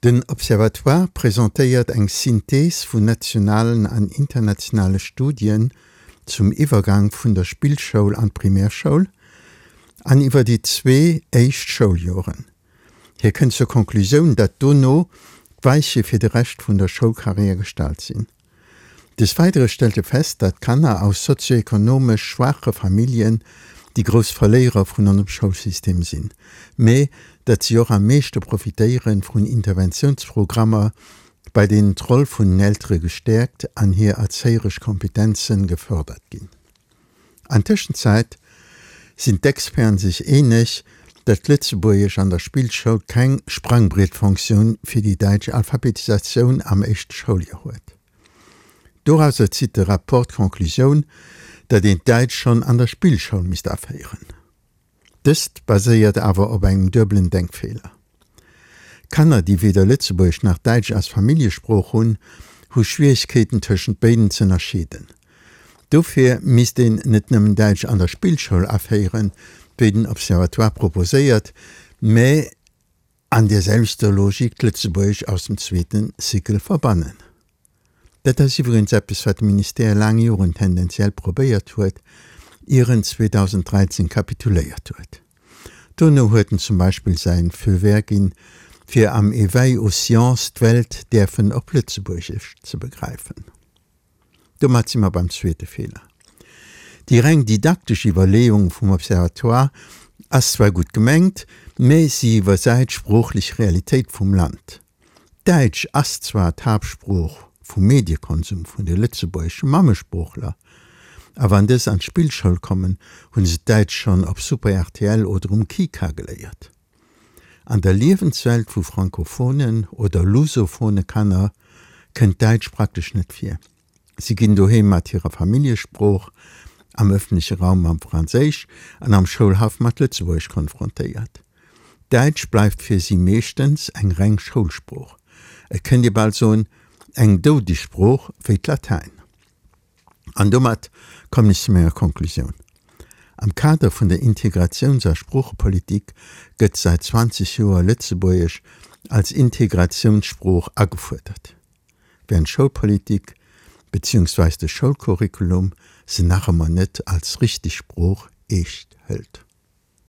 Den Observatoire presentéiert eng Synthees vun nationalen an internationale Studien zum Iwwergang vun der Spillschoul an d'Primärschoul an iwwer déi zwee éischt Schouljoren. Hie kënnt zur Konklusioun, datt dono d'Weiche fir de Rescht vun der Schoulkarriär gestallt sinn. Des Weidere stellt e fest, datt Kanner aus sozioekonomesch schwaache Familljen déi grouss Verléierer vun onsem Schoulsystem sinn, mä datt si och am meeschte profitéiere vun Interventiounsprogrammer, bei deenen d'Roll vun den Eltere gestäerkt an hir erzéieresch Kompetenze gefërdert ginn. An Tëschenzäit sinn d'Experten sech eeneg, datt Lëtzebuergesch an der Spillschoul keng Sprangbrietfonktioun fir déi däitsch Alphabetisatioun am éischte Schouljoer huet. Dorauser zitt de Rapport d'Conclusioun, datt een d'Däitsch schonn an der Spillschoul misst aféieren. Dëst baséiert awer op engem duebelen Denkfeeler. Kanner, déi weder Lëtzebuergesch nach Däitsch als Familljesprooch hunn, hu Schwieregkeeten tëschent béiden z'ënnerscheeden. Dofir misst een net nëmmen Däitsch an der Spillschoul aféieren, wéi den Observatoire proposéiert, mä an där selwechter Logik d'Lëtzebuergesch aus dem zweeten Cycle verbannen. Dat ass iwwregens eppes, wat de Ministère laang Joren tendenziell probéiert huet, ier en 2013 kapituléiert huet. Dono huet en zum Beispill säin Feu vert ginn, fir am Éveil aux sciences d'Welt däerfen op Lëtzebuergesch ze begräifen. Domat si mer beim zweete Feeler. Déi reng didaktesch Iwwerleeung vum Observatoire ass zwar gutt gemengt, mä si iwwersäit d'sproochlech Realitéit vum Land. Däitsch ass zwar d'Haaptsprooch vum Mediekonsum vun de lëtzebuergesche Mammesproochler, a wann dës an d'Spillschoul kommen, hu se d'Däitsch schonn op Super rtl oder um Kika geléiert. An der Liewenswelt vu frankophonen oder lusophone Kanner kënnt Däitsch praktesch net vir. Si ginn doheem mat hirer Familljesprooch, am ëffentleche Raum mam Franséisch an am Schoulhaff mat Lëtzebuergesch konfrontéiert. Däitsch bleift fir si meeschtens eng reng Schoulsprooch, et kënnt ee bal soen, eng doudeg Sprooch wéi d'Latäin. An domat kommen ech zu menger Konklusioun. Am Kader vun der Integratiouns a Sproochepolitik gëtt säit 20 Joer Lëtzebuergesch als Integratiounssprooch agefuerdert. während d'Schoulpolitik beziehungsweis de Schoulcurriculum se nach ëmmer net als richteg Sprooch eescht hëlt.